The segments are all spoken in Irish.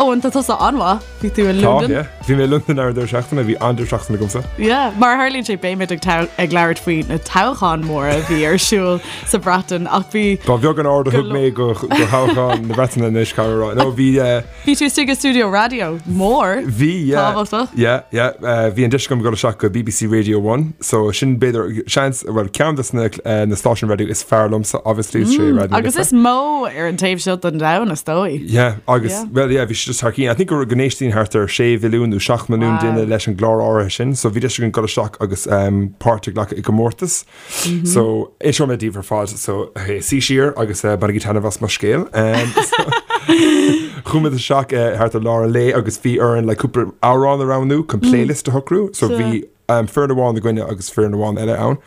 Eoin, tá tusa an-mhaith. Bhí tú i Tá, Londain. yeah. Bhí mé i Londain ar an deireadh seachtaine, bhí an-deireadh seachtaine agamsa. Yeah, mar a tharlaíonn sé beimid ag ag labhairt faoi na toghcháin mhóra a bhí ar siúl sa Bhreatain ach bhí Ba bheag an aird a go thug mé go go thoghchán na Breataine anois, caithfidh mé a rá. No, bhí eh, Bhí tú istigh i stiúideo raidió mór. Bhí, yeah. Tábhachtach. Yeah, yeah. Eh, bhí an deis agam dul isteach go BBC Radio One, so sin b'fhéidir seans, well, ceann de na, eh, na stáisiúin raidió is fearr liomsa, obviously, is sé Raidió na Agus Life. is mó ar an taobh seo den domhan, is dóigh. Yeah, agus, Yeah. well, yeah, bhí sé just thar cinn. I think go go n-éisteann thart ar 6 mhilliún nó 7 milliún Wow. duine leis an gclár áirithe sin, so bhí deis againn dul isteach agus um, páirt a ghlacadh i gcomórtas. Mm-hmm. So, inseoidh mé daoibh ar fad, so, hey, suigh siar agus uh, bainigí taitneamh as mo scéal. Um, so, Chuaigh muid isteach uh, thart ar lár an lae agus bhí orainn le cúpla amhrán a roghnú chun playlist a shocrú, so Sure. bhí um, foireann amháin againne agus foireann amháin eile ann.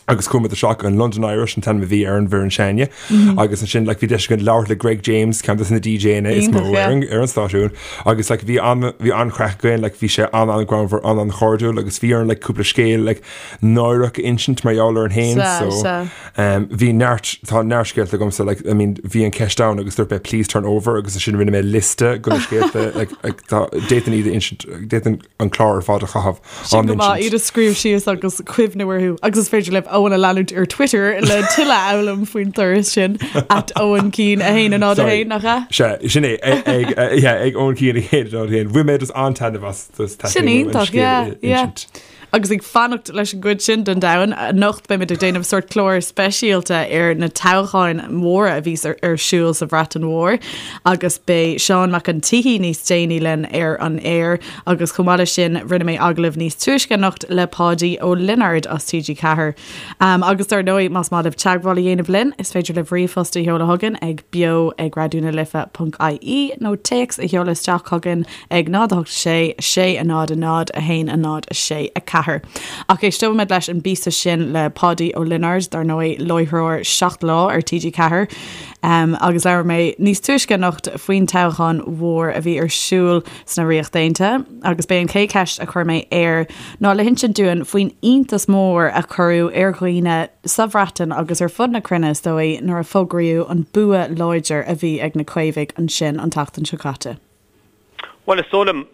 Agus chuaigh muid isteach an London Irish an t-ainm a bhí ar an bhfoireann s'againne. Agus ansin like, bhí deis againn labhairt le Greg James, ceann de na DJanna is mó Iontach, yeah. ar an, ar an stáisiún. Agus like, bhí an, bhí an-chraic againn, like, bhí sé an-an-ghreannmhar, an-an-chairdiúil, agus bhí orainn like, cúpla scéal like, náireach a insint mar gheall orainn féin. Sea, So, sea. um, bhí neart, tá neart scéalta agamsa, like, I mean, bhí an ceist ann agus dúirt mé please turn over agus ansin rinne mé liosta de na scéalta, like, like, tá, d'fhéadfainn iad a insint, d'fhéadfainn an clár ar fad a chaitheamh á Sin go maith n-insint. iad a scríobh síos agus cuimhniú orthu. Agus is féidir libh Eoin a leanúint ar Twitter le tuilleadh a fhoghlaim faoin turas sin at Eoin Keane 1 0 Sorry. 1 nach ea? Sea, sin é, ag, ag, eh, yeah, ag Eoin Keane 1 0 1. Bhain mé just an-taitneamh as just Sin taitneamh an iontach, scéal yeah, a yeah. insint. Agus ag fanacht leis an gcuid sin den domhan, anocht beimid ag déanamh sórt clár speisialta ar na toghcháin mhóra a bhí ar siúl sa Bhreatain Mhór agus beidh Seán Mac an tSíthigh níos déanaí linn ar an aer agus chomh maith leis sin rinne mé agallamh níos túisce anocht le Páidí Ó Lionáird as TG4. Agus dar ndóigh más maith libh teagmháil a dhéanamh linn is féidir libh ríomhphost a sheoladh chugainn ag beo ag raidionalife.ie nó téacs a sheoladh isteach chugainn ag 0 8 6 6 0 0 1 0 6 4. Ach éisteoimid leis an bpíosa sin le Páidí Ó Lionáird, dar ndóigh, láithreoir Seacht Lá ar TG4, agus labhair mé níos túisce anocht faoin toghchán mhór a bhí ar siúl sna Ríocht Aontaithe agus b'é an chéad cheist a chuir mé air ná le hinsint dúinn faoin iontas mór a cuireadh ar dhaoine sa Bhreatain agus ar fud na cruinne is dóigh nuair a fógraíodh an bua láidir a bhí ag na Caomhaigh ansin an tseachtain seo caite. Bhuel, is dóigh liom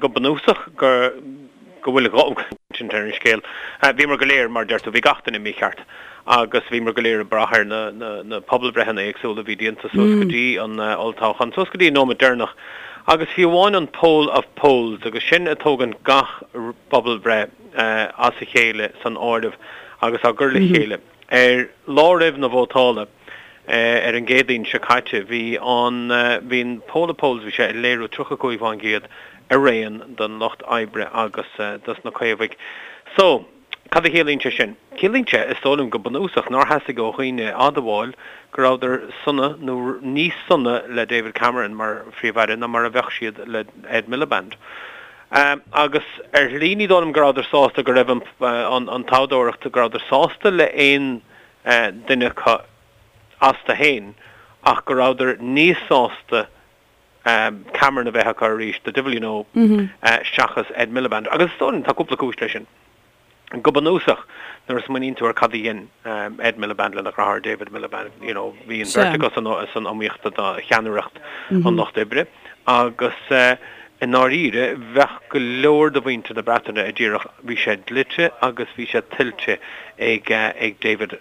go bunúsach go go bhfuil insint ar an scéal. Bhíomar go léir, mar a deir tú, bhí gach duine mícheart agus bhíomar go léir ag brath ar na na na pobalbhreitheanna éagsúla a bhí déanta suas go dtí an olltoghchán, suas go dtí an nóiméad deireanach. Agus fiú amháin an poll of polls, agus sin ag tógaint gach pobalbhreith as a chéile san áireamh agus á gcur le chéile. Ar lá roimh na vótála, ar an gCéadaoin seo caite, bhí an bhí an poll of polls, bhí sé ag léiriú 35% araon don Lucht Oibre agus dos na Caomhaigh. So, cad a chiallaíonn sé sin? Ciallaíonn sé, is dóigh liom, go bunúsach, nár theastaigh ó dhaoine a admháil go rabhadar sona nó níos sona le David Cameron mar Phríomh-Aire ná mar a bheadh siad le Ed Miliband. Agus ar shlí ní dóigh liom go rabhadar sásta go raibh an toghthóireacht, go rabhadar sásta le aon duine acu astu féin ach go rabhadar níos sásta Cameron a bheith acu arís, the devil you know, seachas Ed Miliband. Agus is dóigh liom tá cúpla cúis leis sin. Go bunúsach, nuair a smaoiníonn tú ar cad a dhein Ed Miliband lena dheartháir David Miliband, you know, bhí an bheirt acu san iomaíocht do cheannaireacht an Lucht Oibre agus i ndáiríre bheadh go leor de mhuintir na Breataine a déarfadh bhí sé dlite agus bhí sé tuillte ag ag David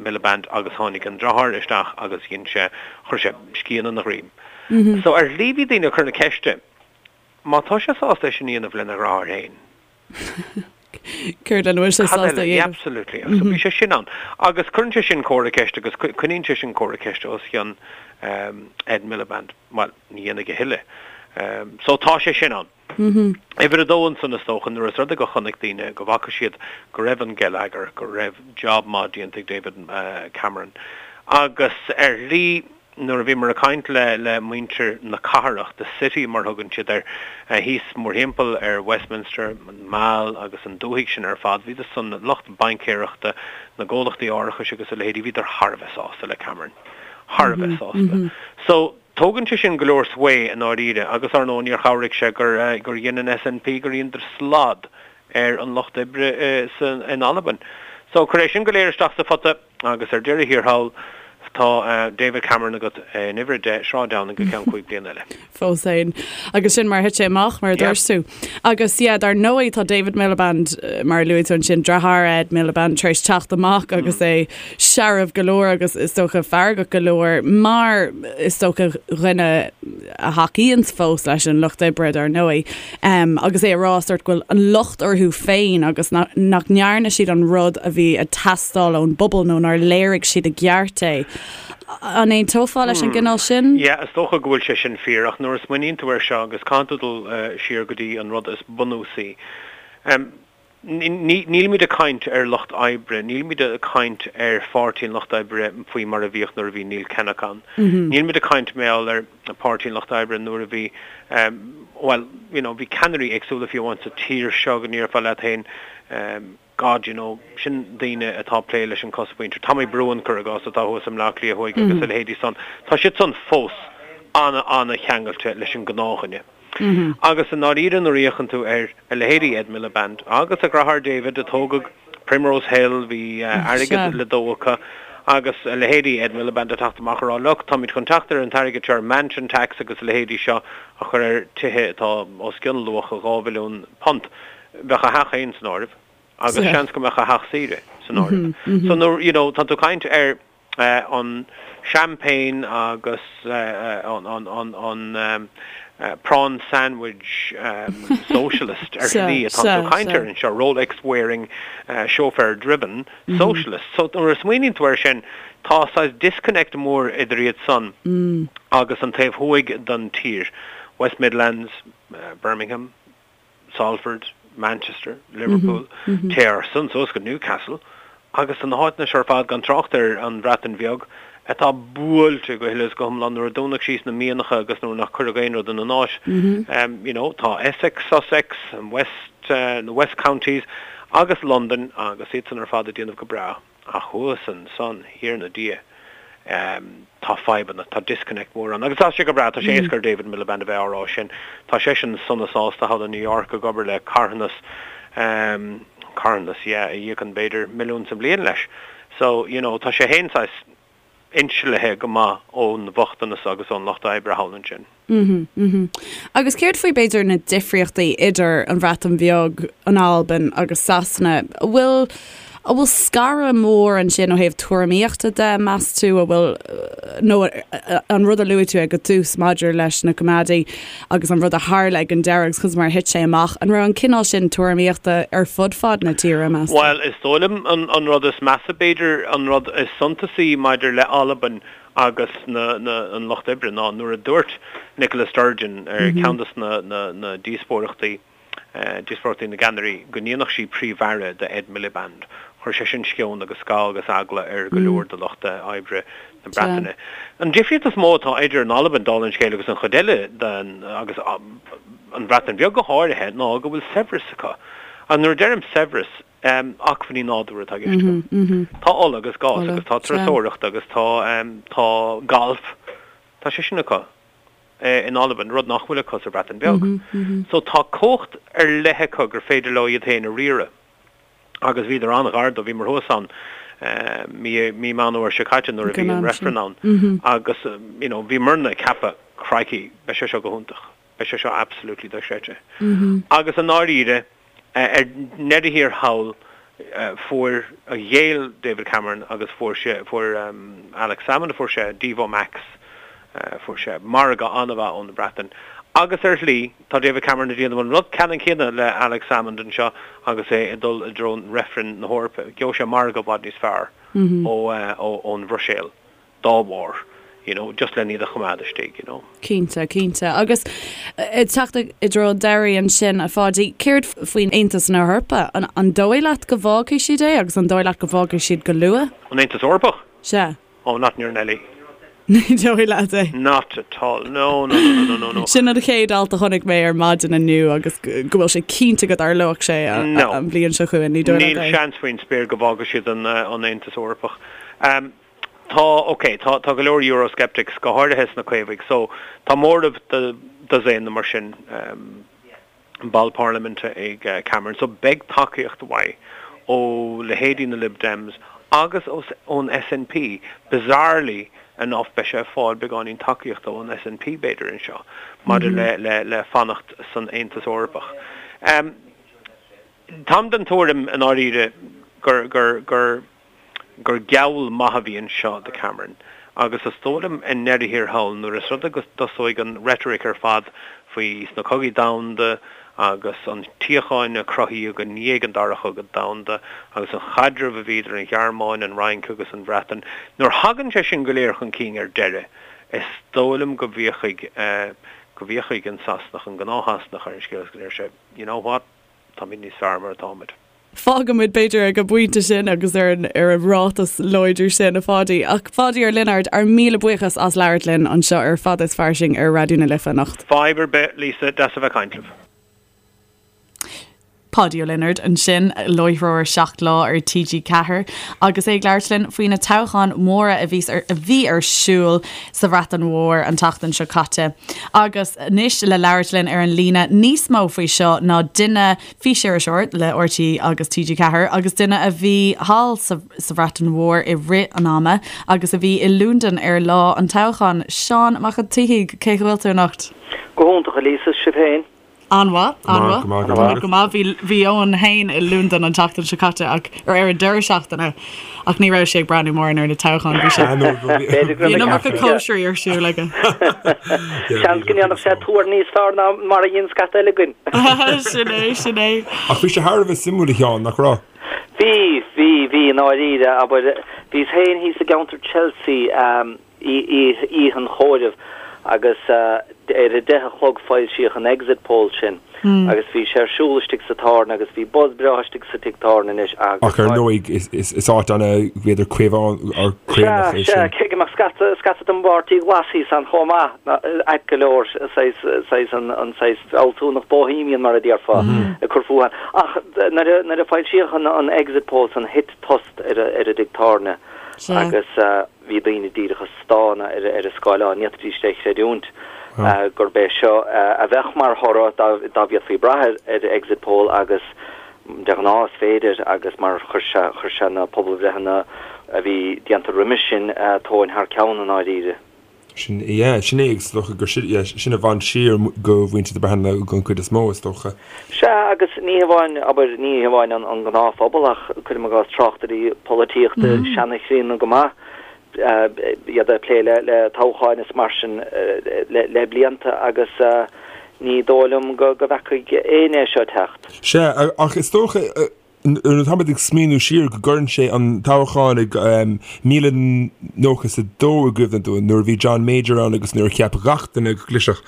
Miliband agus tháinig an deartháir isteach agus dhein sé, chuir sé scian ina dhroim. So ar shlí bhí daoine ag cur na ceiste, má tá sé sásta é sin a dhéanamh lena dheartháir féin, Céard lena bhfuil sé Cad sásta eile? a Yeah, dhéanamh? absolutely. So bhí sé sin ann. Agus cuireann sé sin comhartha ceiste agus coinníonn sé sin comhartha ceiste os cionn Ed Miliband. Bhuel, ní dhéanfaidh a thuilleadh. So tá sé sin ann. Uimhir a dó ansan is dócha, nuair is rud é go chonaic daoine, go bhfaca siad go raibh an geilleagar, go raibh job maith déanta ag David Cameron. Agus ar shlí, Nuair a bhíomar ag caint le le muintir na cathrach, the city mar thugann siad air, thíos mórthimpeall ar Westminster, an Mall agus an dúthaigh sin ar fad, bhíodar san, lucht baincéireachta, na gcomhlachtaí árachais agus a leithéidí, bhíodar thar a bheith sásta le Cameron. Thar a bheith sásta. So, tógann sé sin go leor sway i ndáiríre agus, ar ndóigh, níor chabhraigh sé gur gur dhein an SNP, gur dheineadar slad ar an Lucht Oibre in Albain. So, cuir é sin go léir isteach sa phota. Agus ar deireadh thiar thall, tá David Cameron agat in uimhir 10, Sráid Downing go ceann 5 bliana eile. Fós féin. Agus sin mar a thit sé amach, mar a dúirt tú. Agus yeah, dar ndóigh tá David Miliband, mar a luaigh tú ansin, deartháir Ed Miliband, tar éis teacht amach agus é searbh go leor agus is dócha feargach go leor mar is dócha dhuine a thacaíonns fós leis an Lucht Oibre dar ndóigh agus é ag rá sort go bhfuil an locht orthu féin agus nach ndearna siad an rud a bhí ag teastáil ón bpobal nó nár léirigh siad i gceart é. An aontófá leis an gcineál sin? Yeah, is dócha go bhfuil sé sin fíor ach nuair a smaoiníonn tú air seo agus caithfidh tú dul siar go dtí an rud is bunúsaí. Nílimid ag caint ar lucht oibre, nílimid ag caint ar Pháirtí an Lucht Oibre faoi mar a bhíodh nuair a bhí Neil Kinnock ann. Nílimid ag caint mar gheall ar Pháirtí an Lucht Oibre nuair a bhí, bhuel, you know, bhí ceannairí éagsúla fiú amháin sa tír seo go ndéarfá leat féin, God, you know, sin daoine atá ag plé leis an chosmhuintir. Tommy Broughan, cuir i gcás, atá thuas i mBleá Cliath Thuaidh agus a leithéidí san. Tá siad san fós ana-ana-cheangailte leis an ngnáthdhuine. Agus i ndáiríre nuair a fhéachann tú ar a leithéidí Ed Miliband agus a dheartháir David a tógadh Primrose Hill, bhí airgead le dó acu, agus a leithéidí Ed Miliband ag teacht amach ag rá look, táimid chun teacht ar an t-airgead seo ar mansion tax agus a leithéidí seo a chur ar tithe atá os cionn luach £2 mhilliún. Bheadh a theach féin san áireamh agus seans go mbeadh a theach saoire san áireamh. So nuair, you know, tá tú ag caint ar an champagne agus an prawn sandwich socialist ar shlí atá tú ag caint air anseo, Rolex wearing, chauffeur driven socialist. So nuair a smaoiníonn tú air sin, tá saghas disconnect mór idir iad san agus an taobh thuaidh den tír, West Midlands, Birmingham, Salford, Manchester, Liverpool, téir ansan suas go Newcastle agus tá na háiteanna seo ar fad, gan trácht ar an Bhreatain Bheag, atá buailte go huile is go hiomlán nuair a dúnadh síos na mianacha agus nuair nach cuireadh aon rud ina n-áit. You know, tá Essex, Sussex, West, the West Counties agus Londain agus iad san ar fad ag déanamh go breá. Ach thuas ansan, Thiarna Dia, tá fadhbanna, tá disconnect mór ann. Agus tá sé go breá, tá sé éasca ar David Miliband a bheith á rá sin. Tá seisean sona sásta thall i New York ag obair le carthanas, carthanas, yeah, a íocann b'fhéidir milliún sa mbliain leis. So, you know, tá sé fhéin saghas inslithe go maith ón bhochtanas agus ón lucht oibre thall ansin. Mhm. Agus céard faoi b'fhéidir na difríochtaí idir an Bhreatain Bheag, an Albain agus Sasana? An bhfuil an bhfuil scaradh mór ansin ó thaobh tuairimíochta de, meas tú, an bhfuil nó an rud a luaigh tú ag an tús maidir leis na Coimeádaigh agus an rud a tharla ag an deireadh agus conas mar a thit sé amach, an raibh an cineál sin tuairimíochta ar fud fad na tíre, meas tú? Bhuel, is dóigh liom an an rud is measa b'fhéidir, an rud is suntasaí maidir le Albain agus na, na, an Lucht Oibre ná nuair a dúirt Nicola Sturgeon ar cheann de na, na, na díospóireachtaí, díospóireachtaí na gceannairí, go ndéanfadh sí Príomh-Aire de Ed Miliband, chuir sé sin sceon agus scamhadh agus eagla ar go leor de lucht oibre na Breataine. An difríocht is mó atá idir an Albain, dála an scéil, agus an chuid eile den, agus an Bhreatain Bheag go háirithe, ná go bhfuil saibhreas acu. Agus nuair a deirim saibhreas, acmhainní nádúrtha atá i gceist agam. Tá ola agus gás agus tá turasóireacht agus tá tá galf, tá sé sin acu in Albain, rud nach bhfuil acu sa Bhreatain Bheag. So tá cumhacht ar leith acu gur féidir leo iad féin a riaradh agus bhíodar an-ghar dó, bhíomar thuas ann mí mí Meán Fhómhair seo caite nuair a bhí an reifreann ann agus you know bhíomarna ag ceapadh crikey beidh sé seo go hiontach. Beidh sé seo absolutely dochreidte. Agus i ndáiríre, ar ndeireadh thiar thall, fuair, ghéill David Cameron agus fuair sé, fuair Alex Salmond, fuair sé Devo Max, fuair sé margadh an-mhaith ón Bhreatain. Agus ar shlí, tá David Cameron ag déanamh an rud ceannann céanna le Alex Salmond anseo agus é ag dul i dtreo reifreann na hEorpa. Gheobhaidh sé margadh i bhfad níos fearr ó ón Bhruiséil. dá bharr, you know, just len iad a choimeád istigh, you know. Cinnte, cinnte. Agus ag teacht i dtreo an deiridh ansin, a Pháidí, céard faoin Aontas na hEorpa? An, an dóigh leat go bhfágfaidh siad é agus an dóigh leat go bhfágfaidh siad go luath? An Aontas Eorpach? Sea. Oh, not in your Nelly. Ní dóigh leat é? Not at all. No, no, no, no, no, no. Sin an chéad alt a chonaic mé ar maidin inniu agus go bhfuil sé cinnte go dtarlóidh sé No. an bhliain seo chugainn. Ní dóigh leat Níl é? seans faoin spéir go bhfágfaidh siad an, an Aontas Eorpach. Um, Tá, ok, tá, tá go leor Eurosceptics, go háirithe sna Caomhaigh, so tá móramh de dosaen nó mar sin ball parlaiminte ag Cameron, so beidh tacaíocht mhaith ó leithéidí na Lib Dems. agus ón SNP, bizarrely enough beidh sé ag fáil beagáinín tacaíochta ón SNP b'fhéidir anseo maidir le le fanacht san Aontas Eorpach. Táim den tuairim i ndáiríre gur gur gur gur geall maith a bhí anseo do Cameron agus is dóigh liom i ndeireadh thiar thall nuair is rud é go dtosóidh an rhetoric ar fad faoi sna cogaí domhanda agus an tsíocháin a cruthaíodh i ndiaidh an Dara Chogadh Domhanda agus an chaidreamh a bhí idir an Ghearmáin, an Fhrainc agus an Bhreatain, nuair thagann sé sin go léir chun cinn ar deireadh, is dóigh liom go bhféachfaidh go bhféachfaidh an Sasanach, an gnáth-Shasanach ar an scéal agus go ndeir sé, you know what, táimid níos fearr mar atáimid. Fágfaimid, b'fhéidir, ag an bpointe sin agus ar an ar an ráiteas láidir sin, a Pháidí. Ach Pháidí Ó Lionáird, ár míle buíochas as labhairt linn anseo ar Fada is Fairsing ar Raidió na Life anocht. Fadhb ar bith, Lisa, deas a bheith ag caint libh. Páidí Ó Lionáird ansin, láithreoir 7 Lá ar TG4, agus é ag labhairt linn faoi na toghcháin mhóra a bhí a bhí ar siúl sa Bhreatain Mhór an tseachtain seo caite. Agus anois le labhairt linn ar an líne níos mó faoi seo ná duine físiriseoir le RTÉ agus TG4 agus duine a bhí thall sa Bhreatain Mhór i rith an ama agus a bhí i Londain ar lá an toghcháin. Seán Mac an tSíthigh, cén chaoi a bhfuil tú anocht? Go hiontach, a Lisa, is sibh féin? An-mhaith, an-mhaith. Go maith. Bhí Eoin féin i Londain an tseachtain seo caite ach, ar an deireadh seachtaine ach ní raibh sé ag breathnú mórán ar na toghcháin, bhí sé, bhí an iomarca cóisirí ar siúl aige. Seans go ndéanfadh sé tuar níos fearr ná mar a dhein scata eile againn. Sin é, sin é. Ach bhí sé thar a bheith suimiúil a Sheáin, nach raibh? Bhí, bhí, bhí, i ndáiríre, abair, bhíos féin thíos i gceantar Chelsea, oíche an chomhairimh agus ar a deich a chlog foilsíodh an exit poll sin agus bhí sé ar siúl istigh sa tábhairne agus bhí buzz breá istigh sa tigh tábhairne anois agus Ach ar ndóigh is áit ana b'fhéidir caomhánach é sin. Sea, sea, cé go mbeadh scata, scata den bPáirtí Glas thíos ann chomh maith, ait go leor, saghas, saghas an, an saghas fealsúnacht bohemian mar a déarfá ag cur fúthu ann. Ach nuair a, nuair a foilsíodh an, an exit poll san thit tost ar, ar an dtigh tábhairne agus Bhí daoine díreach ag stánadh ar an scáileán, ní fhéadfaidís é a chreidiúint gurb é seo a bheadh mar thoradh dá bhféadfaí brath ar exit poll agus de ghnáth is féidir agus mar chuir sé chuir sé na pobalbhreitheanna a bhí déanta roimis sin tóin thar ceann i ndáiríre. Sin, yeah, sin é agus is dócha gur sin, yeah, sin a bhain siar go mhuintir na Breataine den chuid is mó, is dócha. Sea, agus ní hamháin, abair, ní hamháin an gnáthphobal ach, cuirim i gcás, tráchtairí polaitíochta seanchríonna go maith, iad ag plé le toghcháin is mar sin le blianta agus ní dóigh liom go bhfeacaigh éinne é seo ag teacht. Sea, ach is dócha, Nuair atáimid ag smaoineamh siar go gcuireann sé an toghchán i 1992 i gcuimhne dúinn, nuair a bhí John Major ann agus nuair a cheap gach duine go gclisfeadh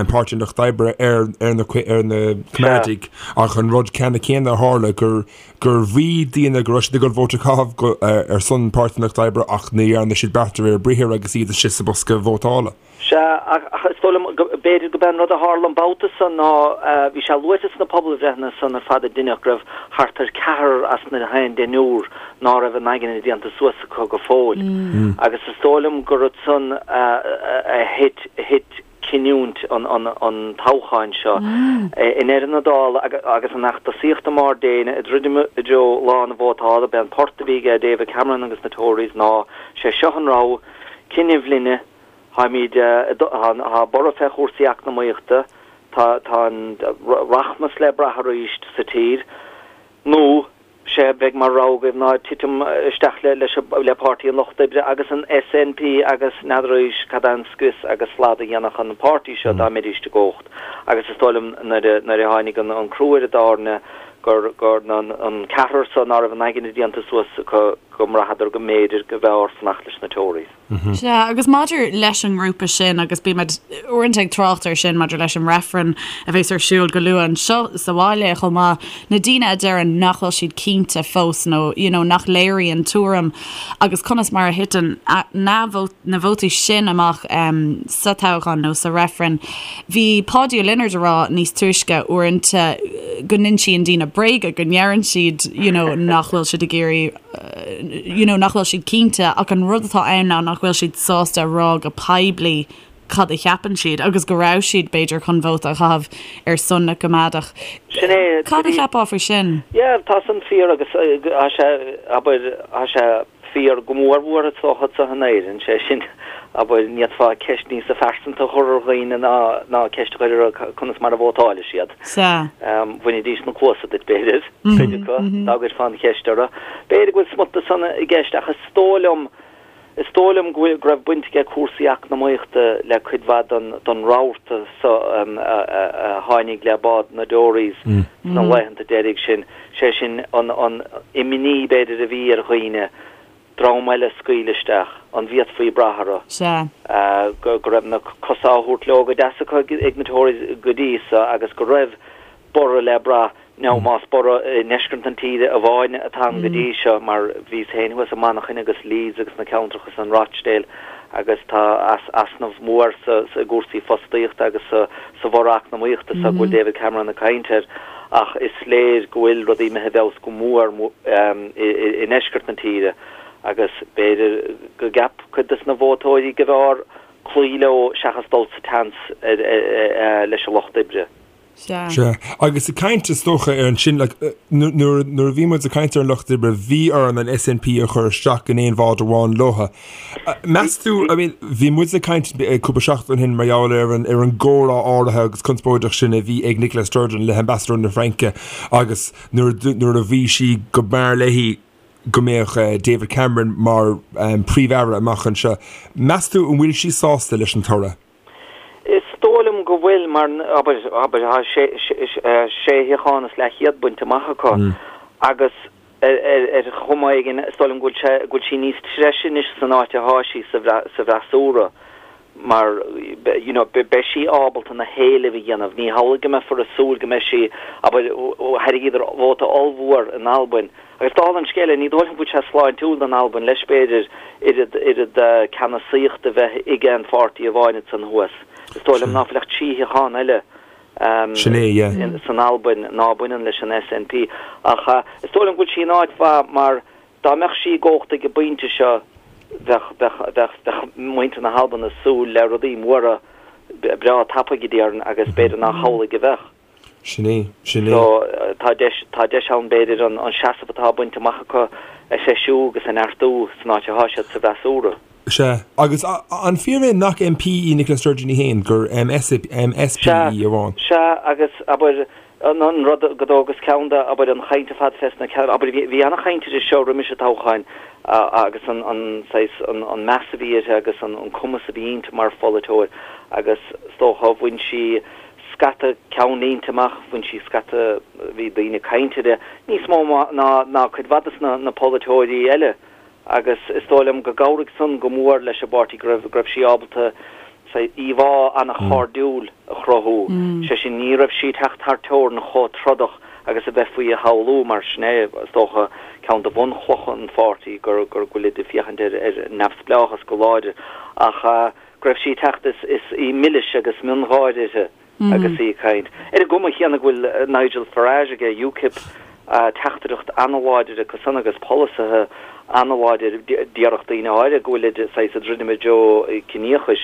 Páirtí an Lucht Oibre ar na Coimeádaigh ach an rud ceannann céanna a tharla gur gur mhaígh daoine go raibh siad ag dul vóta a chaitheamh ar son Páirtí an Lucht Oibre ach ní dhearna siad beart de réir a briathair agus iad istigh sa bosca vótála. Sea, ach is dóigh liom go b'fhéidir go b'é an rud a tharla an babhta san ná bhí sé luaite sna pobalbhreitheanna san ar fad a deineadh go raibh thart ar ceathrar as na haon deichniúr ná raibh a n-aigne déanta suas acu go fóill. Agus is dóigh liom gur ansan a thit thit cinniúint an an toghcháin seo. I ndeireadh na dála agus an fheachtasaíocht i mbarr déine ag druidim i dtreo lá na vótála, b'é an port a bhí ag David Cameron agus na Tories ná sé seo an rogha, cinneadh linne, Táimid, tá borradh fé chúrsaí eacnamaíochta, tá tá an rachmas le brath arís sa tír, nó sé a bheidh mar rogha agaibh ná titim isteach le leis le Páirtí an Lucht Oibre agus an SNP agus n'fheadaraís cad é an scrios agus slad a dhéanfadh an páirtí seo dá mbeidís i gcumhacht. Agus is dóigh liom nuair a nuair a tháinig an an crú ar an dtairne gur gur an ceathrar so ná raibh a n-aigne déanta suas acu go mbraitheadar go mb'fhéidir go mb'fhearr fanacht leis na Tories. Sea, agus maidir leis an ngrúpa sin, agus bímid uaireanta ag trácht air sin maidir leis an reifreann a bheas ar siúl go luath anseo sa bhaile chomh maith, na daoine a deireann nach bhfuil siad cinnte fós nó you know nach léiríonn tuairim agus conas mar a thiteann na na vótaí sin amach sa toghchán nó sa reifreann. Bhí Páidí Ó Lionáird a rá níos túisce uaireanta go n-insíonn daoine bréaga, go ndeireann siad you know nach bhfuil siad ag iarraidh you know, nach bhfuil siad cinnte ach an rud atá ann ná nach bhfuil siad sásta a rá go poiblí. cad a cheapann siad agus go raibh siad, b'fhéidir, chun vóta a chaitheamh ar son na gCoimeádach. Sin é. Cad a cheapfá faoi sin? Yeah, tá san fíor agus tá sé, abair, tá sé fíor go mór mhór is dócha anseo in Éirinn, sé sin, abair, ní fhéadfá ceist níosa phearsanta a chur ar dhaoine ná ná ceist a chur orthu conas mar a vótáilfidh siad. Sea. Bhainfidís na cluasa duit, b'fhéidir, cuid acu, dá gcuirfeá an cheist orthu. B'fhéidir go bhfuil smut de san i gceist ach is dóigh liom, Is dóigh liom go bhfuil, go raibh baint aige cúrsaí eacnamaíochta le cuid mhaith den, den rabharta so a tháinig le bád na dTories sna laethanta deiridh sin, sé sin an, an imní b'fhéidir a bhí ar dhaoine, dream eile a scaoileadh isteach, an bhféadfaí brath orthu? Sea. Go, go raibh na cosa á thabhairt leo go deas acu ag na Tories go dtí so agus go raibh borradh le brath. Now más borradh i ndeisceart an tíre amháin atá ann go dtí seo, mar bhíos féin thuas i Manchain agus Leeds agus na ceantracha san, Rochdale, agus tá easnamh mór sa i gcúrsaí fostaíochta agus sa sa bhorradh eacnamaíochta so go bhfuil David Cameron ag caint air ach is léir go bhfuil rudaí imithe i bhfeabhas go mór i ndeisceart na tíre agus b'fhéidir go gceap cuid des na vótóirí go mb'fhearr cloí leo seachas dul sa tseans leis an Lucht Oibre. Sea. Sea. Agus ag caint, is dócha, ar ansin, like, nuair, nuair a bhí muid ag caint ar an Lucht Oibre, bhí orainn an SNP a chur isteach in aon bhád amháin leotha. Meas tú, I mean, bhí muid ag caint cúpla seachtain ó shin mar gheall ar an, ar an gcomhrá áirithe agus conspóideach sin a bhí ag Nicola Sturgeon le hambasadóir na Fraince agus nuair, nuair a bhí sí go mb'fhearr léi go mbeadh David Cameron mar Príomh-Aire amach anseo. Meas tú an bhfuil sí sásta leis an toradh? Is dóigh liom go bhfuil, mar, abair, abair, tá sé, sé shuíochán is leathchéad bainte amach acu agus ar, ar, ar chuma éigin, is dóigh liom go bhfuil sé, go bhfuil sí níos treise anois san áit atá sí sa, sa bhfreasúra mar, you know, beidh sí ábalta na héilimh a dhéanamh. Ní hamhlaidh go mbeifear ag súil go mbeidh sí, abair, thairgíodar vóta ollmhór in Albain Agus dála an scéil, ní dóigh liom go bhfuil sé sláintiúil don Albain leis, b'fhéidir, oiread, oiread ceannasaíochta a bheith ag aon pháirtí amháin ansan thuas. Is dóigh liom ná fuil ach 3 shuíochán eile Sin é, yeah. san Albain ná baineann leis an SNP. Ach is dóigh liom go bhfuil sí in áit mhaith mar dá mbeadh sí i gcumhacht ag an bpointe seo bheadh, bheadh, bheadh, bheadh muintir na hAlban ag súil le rudaí móra breá tapaidh, déarfainn, agus b'fhéidir nach hamhlaidh a bheadh. Sin é, sin é. So, tá deis, tá deis ann b'fhéidir an seasamh atá bainte amach acu a threisiú agus a neartú san áit atá siad sa bhfreasúra. Sea. Agus an fíor é nach MP í Nicola Sturgeon í féin, gur MSP í amháin? Sea, agus abair, an rud go dtógas ceann de, abair, an chaint ar fad fés na ceann, abair, bhí ana-chaint uirthi seo roimis an toghchán agus an, an saghas, an meas a bhí uirthi agus an cumas a bhí inti mar pholaiteoir agus is dócha bhain sí scata ceannlínte amach, bhain sí scata, bhí daoine ag caint uirthi, níos mó ná ná cuid mhaith de na polaiteoirí eile agus is dóigh liom go gcabhraigh san go mór leis an bpáirtí go raibh go raibh sí ábalta íomhá an-chairdiúil a chruthú, sé sin ní raibh sí ag teacht thar teorainn chomh trodach agus a bheifí a shamhlú mar sin é is dócha ceann de bhunchlocha an pháirtí gur gur go bhfuilid ag féachaint ar ar neamhspleáchas go láidir ach go raibh sí ag teacht is is í milis agus miongháire uirthi agus í ag caint. Ar an gcuma chéanna go bhfuil Nigel Farage aige, UKIP, teachtaireacht an-láidir acu san agus polasaithe an-láidir, déarfadh daoine áirithe go bhfuilid saghas ag druidim i dtreo ciníochais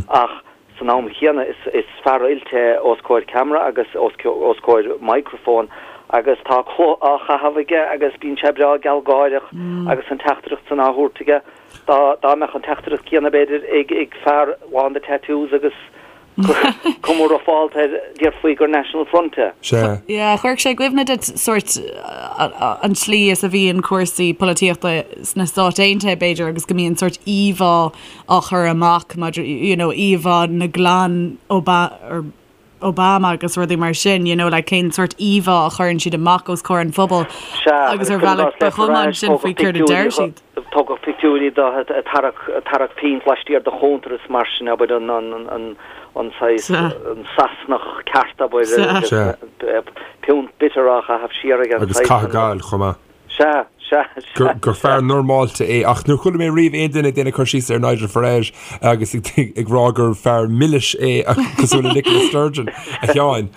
ach san am chéanna is is fear oilte é os comhair ceamara agus os os comhair microphone agus tá culaith á chaitheamh aige agus bíonn sé breá gealgháireach agus an teachtaireacht san á thabhairt aige. Dá dá mbeadh an teachtaireacht céanna b'fhéidir ag ag fear lán de tattoos agus cuma rufálta air déarfaí gur National Front é. Sea. Yeah, chuirfeadh sé i gcuimhne duit sórt an tslí is a bhíonn cúrsaí polaitíochta sna Stáit Aontaithe b'fhéidir agus go mbíonn sórt íomhá á chur amach maidir you know íomhá na gclann Oba or Obama agus rudaí mar sin, you know, like cén sórt íomhá a chuireann siad amach os comhair an phobail Sea, agus agus ar cuir i bhealach gcás ba le chuma Farage, ansin faoi tógadh céard a deir pictiúirí siad. tógadh pictiúirí de ag tarrac ag tarrac pínt laistiar de chuntar is mar sin, abair, an an an an saghas Sea. an Sasanach ceart, abair, Sea. agus Sea. piúnt bitter á chaitheamh siar aige, an Agus saghas caitheamh sin. gail chomh maith. Sea, sea, sea. gur fear normálta é ach níor chuala mé riamh aon duine ag déanamh cur síos ar Nigel Farage agus ag rá gur fear milis é cosúil le Nicola Sturgeon, a Sheáin.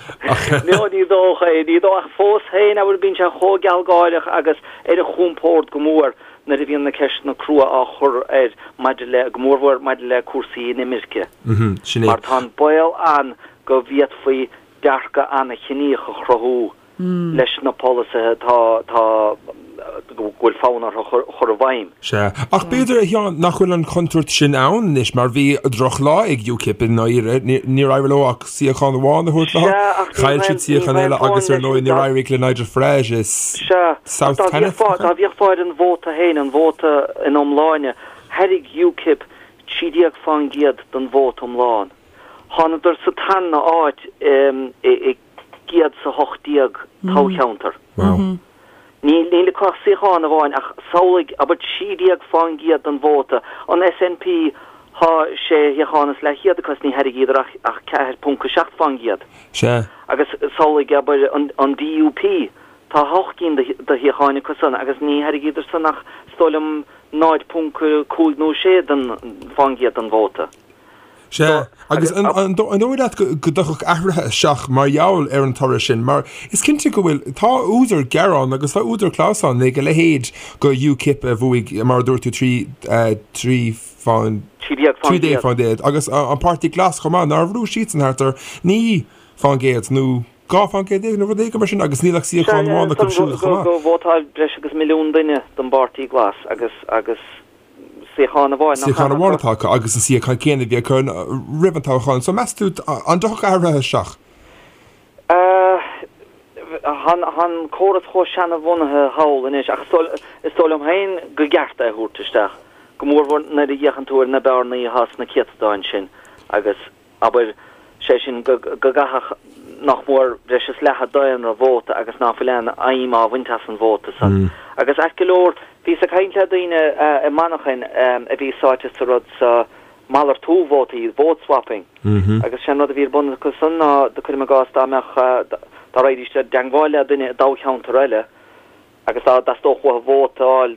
No, ní dócha é, ní dócha, ach fós féin, abair, bíonn sé chomh gealgháireach agus ar a chompord go mór. nuair a bhíonn na ceisteanna crua á chur air maidir le, go mórmhór maidir le cúrsaí inimirce. Sin é. Mar tá an baol ann go bhféadfaí dearcadh an-chiníoch a chruthú leis na polasaithe atá, atá, go bhfuil fonn orthu a chur i bhfeidhm. Sea. Ach b'fhéidir, a Sheáin, nach bhfuil an chontúirt sin ann anois, mar bhí drochlá ag UKIP i ndáiríre. Níor éirigh leo ach suíochán amháin a thabhairt leo. Sea, ach ní Chaill siad suíochán eile agus ar ndóigh níor éirigh le Nigel Farage i Sea, ach South dá Thanet, bhféachfá, dá bhféachfá ar an vóta féin, an vóta ina iomláine, thairg UKIP 13% den vóta iomlán. Thánadar sa tarna áit i 118 toghcheantar. Wow. Níl níl acu ach suíochán amháin ach samhlaigh, abair 13% den vóta. An SNP thá sé shuíochán is leathchéad acu is ní thairgíodar ach ach 4.7%. Sea. Agus samhlaigh, abair, an an DUP, tá hocht gcinn de de shuíocháin acu san agus ní thairgíodar san ach is dóigh liom 0.5 nó 6 den fán gcéad den vóta. Sea, agus an dóigh leat go dtiocfadh athruithe isteach mar gheall ar an toradh sin? Mar is cinnte go bhfuil, tá údar gearáin agus tá údar clamhsáin ag a leithéid go UKIP a bhuaigh, mar a dúirt tú, 3 fán, 13 fán gcéad, agus an Páirtí Glas chomh maith, nár bhrúigh siadsan thart ar 9 fán gcéad nó 12 fán gcéad nó rud éigin mar sin agus níl ach suíochán amháin acu siúd chomh maith. Gur vótáil breis agus milliún duine don bPáirtí Glas agus, agus suíochán amháin nach Suíochán amháin atá acu agus an suíochán céanna a bhí acu roimh an toghchán. So meas tú an dtiocfadh athruithe isteach? Tá an córas chomh seanabhunaithe thall anois ach is dóigh liom féin go gceart é a thabhairt isteach, go mórmhór nuair a fhéachann tú ar na bearnaí atá sna céatadáin sin agus abair, sé sin, go gcaithfeadh nach mór breis is leath an daonra vóta agus ná fuil aon fheidhm á bhaint as an vóta san. Agus ait go leor, bhíos ag caint le daoine i Manchain a bhí sáite sa rud so, malartú vótaí, vote swapping, agus sé an rud a bhí ar bun acu san ná, cuirim i gcás, dá mbeadh, dá raghaidís i dteangmháil le duine i dtoghcheantar eile, agus dá dteastódh uathu vóta a fháil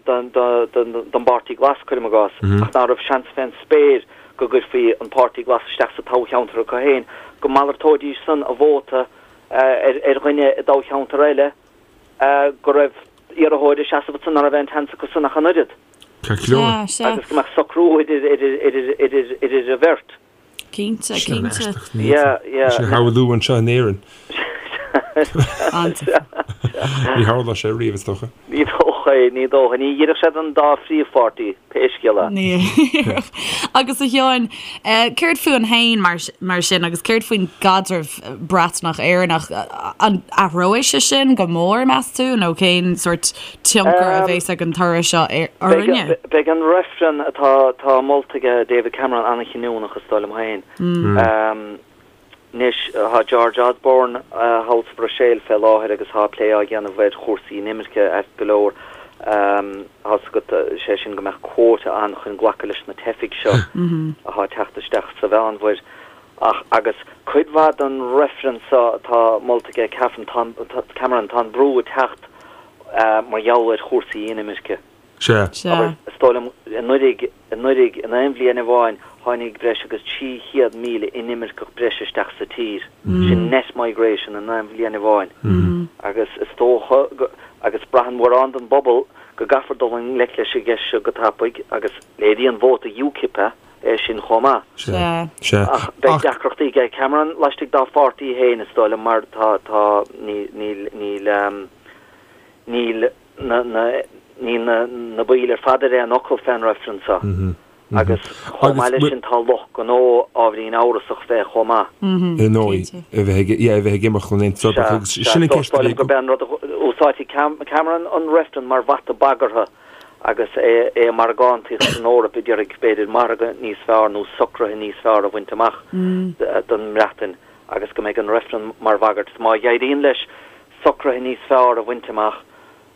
don bPáirtí Glas, cuirim i gcás, ach ná raibh seans fén spéir go gcuirfí an Páirtí Glas isteach sa toghcheantar acu féin, go malartóidís san a vóta ar dhuine i dtoghcheantar eile go raibh iarrthóir ag seasamh ansan ná raibh aon tseans acu san ach an oiread. Ceart go leor. Agus go mbeadh socrú idir an bheirt. Cinnte, Sin cinnte. an-aisteach. Ní Yeah, yeah. Sin a shamhlú anseo in Éirinn. An-deas. Ní tharlódh sé riamh, is dócha. Ní dócha é, ní dócha. Ní oirfeadh sé don dá phríomhpháirtí, pé scéal é. Ní oirfeadh. Agus a Sheáin, céard fúinn féin mar, mar sin agus céard faoin gcaidreamh Breatnach-Éireannach? An athróidh sé sin go mór, meas tú, nó cén sórt tionchar a bheas ag an toradh seo orainne? Beidh an reifreann atá atá molta ag David Cameron an-chinniúnach, is dóigh liom féin. Anois, tá George Osborne thall sa Bhruiséil fé láthair agus tá plé á dhéanamh ar chúrsaí inimirce ait go leor. Tá's agat, sé sin go mbeadh quota ann chun glacadh leis na teifigh seo atá ag teacht isteach sa Mheánmhuir. Ach, agus cuid mhaith den reifreann seo atá molta ag Cameron, tá an brú ag teacht mar gheall ar chúrsaí inimirce. Sea. Abair, is dóigh liom, anuraidh, anuraidh, in aon bhliain amháin, tháinig breis agus 300,000 inimirceach breise isteach sa tír. Sin net migration in aon bhliain amháin. Agus is dócha go, agus braitheann mórán den bpobal go gcaithfear dul i ngleic leis an gceist seo go tapaidh agus léiríonn vóta UKIP é. é sin chomh maith. Sea. Sea. Ach beidh deacrachtaí ag Cameron laistigh dá pháirtí féin, is dóigh liom, mar tá, tá, níl, níl, níl, níl na, na, níl na, na baill ar fad ar aon fhocal fén reifreann seo. Agus chomh maith leis sin tá lucht gnó ábhairín amhrasach fé chomh maith. Ar ndóigh, a bheith ag, yeah, a bheith ag imeacht ón Aontas Eorpach agus sin an ceist a bhí. Is dóigh liom gurb é an rud a úsáidfidh Cameron an reifreann mar bhata bagartha agus é ag margántaíocht san Eoraip ag iarraidh, b'fhéidir, margadh níos fearr nó socruithe níos fearr a bhaint amach don mBreatain agus go mbeidh an reifreann mar bhagairt. Má éiríonn leis socruithe níos fearr a bhaint amach,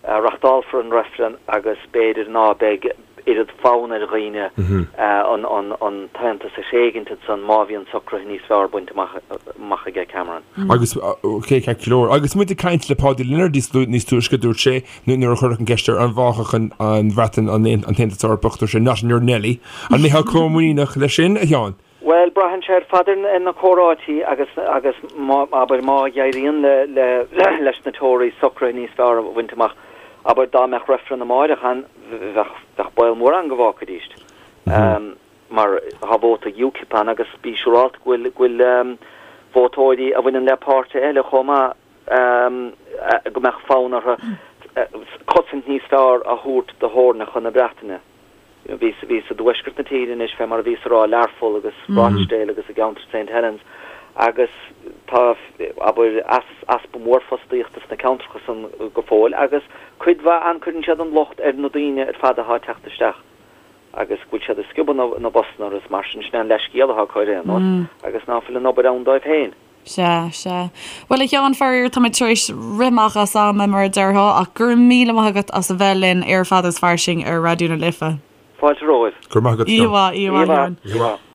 reachtálfar an reifreann agus b'fhéidir ná beidh oiread fonn ar dhaoine an tAontas a thréigint ansan má bhíonn socruithe níos fearr bainte amach aige Cameron. Agus, ok, ceart go leor. Agus muid ag caint le Páidí Lionáird níos túisce, dúirt sé, Nuair a cuireadh an cheist air an bhfágfadh an Bhreatain an tAontas Eorpach, dúirt sé not in your Nelly. An mbeifeá chomh muiníneach leis sin, a Sheáin? Bhuel, braitheann sé ar fad ar na comhráití agus, agus má, abair, má éiríonn le, le, leis na Tories socruithe níos fearr a bhaint amach. Abair dá mbeadh reifreann amáireach ann, bheadh, bheadh baol mór ann go bhfágfaidís. Mar tá vóta UKIP ann agus bí siúrálta go bhfuil, go bhfuil vótóirí a bhaineann le páirtithe eile chomh maith go mbeadh fonn orthu cosaint níos fearr a thabhairt do theorainneacha na Breataine. Bhí bhíos i dtuaisceart na tíre anois, fé mar a bhíos a rá, Learpholl agus Rochdale agus i gceantar St Helens, agus tá, abair, easpa mór fostaíochta sna ceantracha san go fóill agus cuid mhaith ann cuireann siad an locht ar na daoine ar fad atá ag teacht isteach agus go bhfuil siad ag sciobadh na bpostanna orthu is mar sin, sin é an leathscéal atá acu ar aon nós agus ná fuil an obair ann dóibh féin. Sea, sea. Bhuel, a Sheáin, faraor, táimid tar éis rith amach as am, mar a déarfá, ach go raibh míle maith agat as a bheith linn ar Fada is Fairsing ar Raidió na Life. Fáilte romhaibh. Go raibh maith agat, a Sheáin. Oíche mhaith, oíche mhaith, a Sheáin. Oíche mhaith.